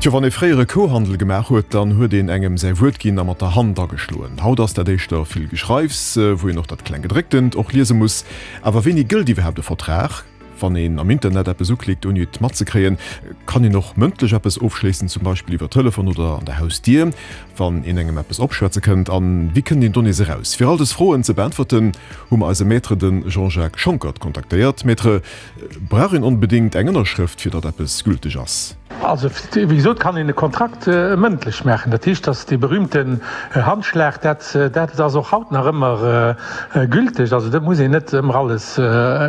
Tjo, wann ee fréier e Kouhandel gemaach huet, dann huet een engem säi Wuert ginn a mat der Hand ageschloen. Haut ass dat éischter vill Geschreifs, wou een och dat Klenggedrécktent och liese muss. Awer wéini gëllt iwwerhaapt e Vertrag? Wann een am Internet eppes uklickt ouni et matzekréien, kann een och mëndlech eppes ofschléissen, zum Beispill iwwer Telefon oder an der Hausdier, wann een engem eppes opschwätze kënnt. An wéi kënnt een do nees eraus? Fir all dës Froen ze beäntwerten, hu mer eise Maître, de Jean-Jacques Schonckert, kontaktéiert. Maître, brauch een onbedéngt eng Ënnerschrëft, fir datt eppes gülteg ass? Also, wéi gesot, kann een e Kontrakt mëndlech maachen. Dat heescht, dass dee berühmten Handschlag, dat, dat ass och haut nach ëmmer gülteg. Also, do muss een net ëmmer alles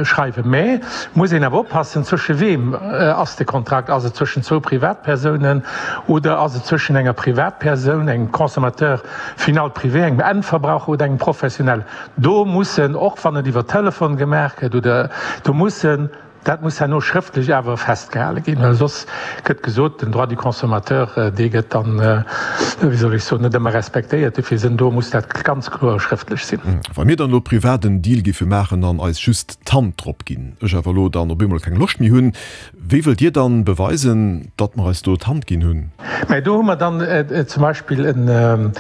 schreiwen. Mä muss een awer oppassen, zwësche weem ass de Kontrakt? Ass et zwëschen zwou Privatpersounen oder ass et zwëschen enger Privatpersoun, engem Consommateur final privé, engem Endverbraucher oder engem Professionell? Do mussen, och wann et iwwer Telefon gemaach gëtt oder, do mussen, Dat muss herno schrëftlech awer festgehale ginn, well soss gëtt gesot, den Droit du consommateur, dee gëtt dann, wéi soll ech soen, net ëmmer respektéiert. Dofir sinn, do muss dat ganz kloer schrëftlech sinn. Wa mir dann elo privat en Deal géife maachen an eis just d'Hand drop ginn, ech awer elo dann op eemol keng Loscht méi hunn, wéi wëllt Dir dann beweisen, datt mer eis do d'Hand ginn hunn? Mä do hu mer dann zum Beispill en.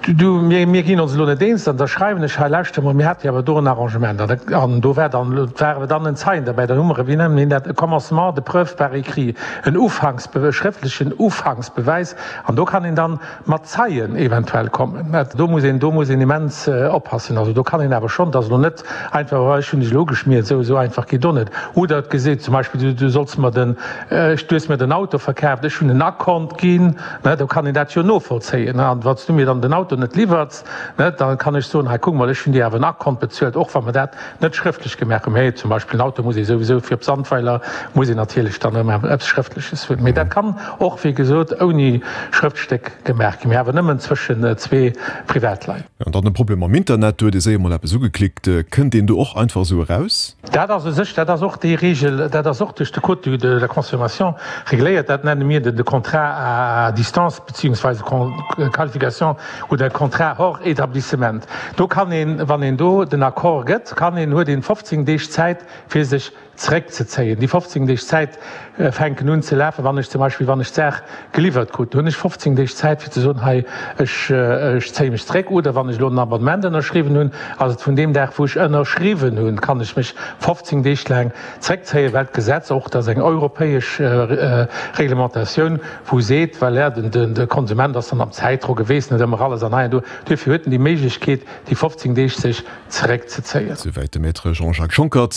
Du, mir, mir ginn ons elo net eens, an da schreiwen ech, hei lauschter mol, mir hate jo awer do en Arrangement, an, an do war dann, war awer dann en Zeien derbäi, dann hu mer, wéi nennen een dat, e Commencement de preuve par écrit, en Ufanks, e schrëftlechen Ufanksbewäis, an do kann een dann mat Zeien eventuell kommen. Do muss een, do muss een immens oppassen. Also do kann een awer schonn, et ass elo net einfach, oh ech hunn dech elo ugeschmiert, esou, esou einfach geet och net. Oder et geseet zum Beispill, du, du solls mer den, ech, du hues mir den Auto verkaaft, ech hunn en Akkont ginn, Ne, do kann een dat jo novollzéien. Ne, an wann s du mir dann den Auto net liwwerts, ne, da kann ech soen, hei kuck mol, ech hunn dir awer en Akkont bezuelt, och wa mer dat net schrëftlech gemaach hunn. Mee zum Beispill en Auto muss ee souwisou fir op Sandweiler muss een natierlech dann ëmmer eppes Schrëftleches hunn. Mee dat kann och, wéi gesot, ouni Schrëftstéck gemaach ginn, mee awer nëmmen zwëschen zwee Privatleit. An dann de Problem mam Internet, do huet ee séier mol eppes ugeklickt. Kënnt een do och einfach esou eraus? Dat ass u sech, dat ass och déi Regel, dat ass och duerch de Code de la consommation regléiert, dat nenne mir de Contrat à distance beziehungsweise Qualification oder Contrat hors établissement. Do kann een, wann een do den Accord gëtt, kann een, huet een 15 Deeg Zäit fir sech zeréckzezéien. Déi 15 Deeg Zäit fänken un ze lafen, wann ech zum Beispill, wann ech d'Saach geliwwert krut, hunn ech 15 Deeg Zäit fir ze soen, hei ech ech zéie mech zeréck. Oder wann ech elo en Abonnement ënnerschriwwen hunn, ass et vun deem Dag wou ech ënnerschriwwen hunn, kann ech mech 15 Deeg laang zeréckzéien, well d'Gesetz och, dat ass eng europäesch Reglementatioun, wou seet, voilà, den de Konsument ass dann am Zäitdrock, e weess net ëmmer alles an hei an do, duerfir huet en déi Méiglechkeet déi 15 Deeg sech zeréckzezéien. Souwäit de Maître Jean-Jacques Schonckert.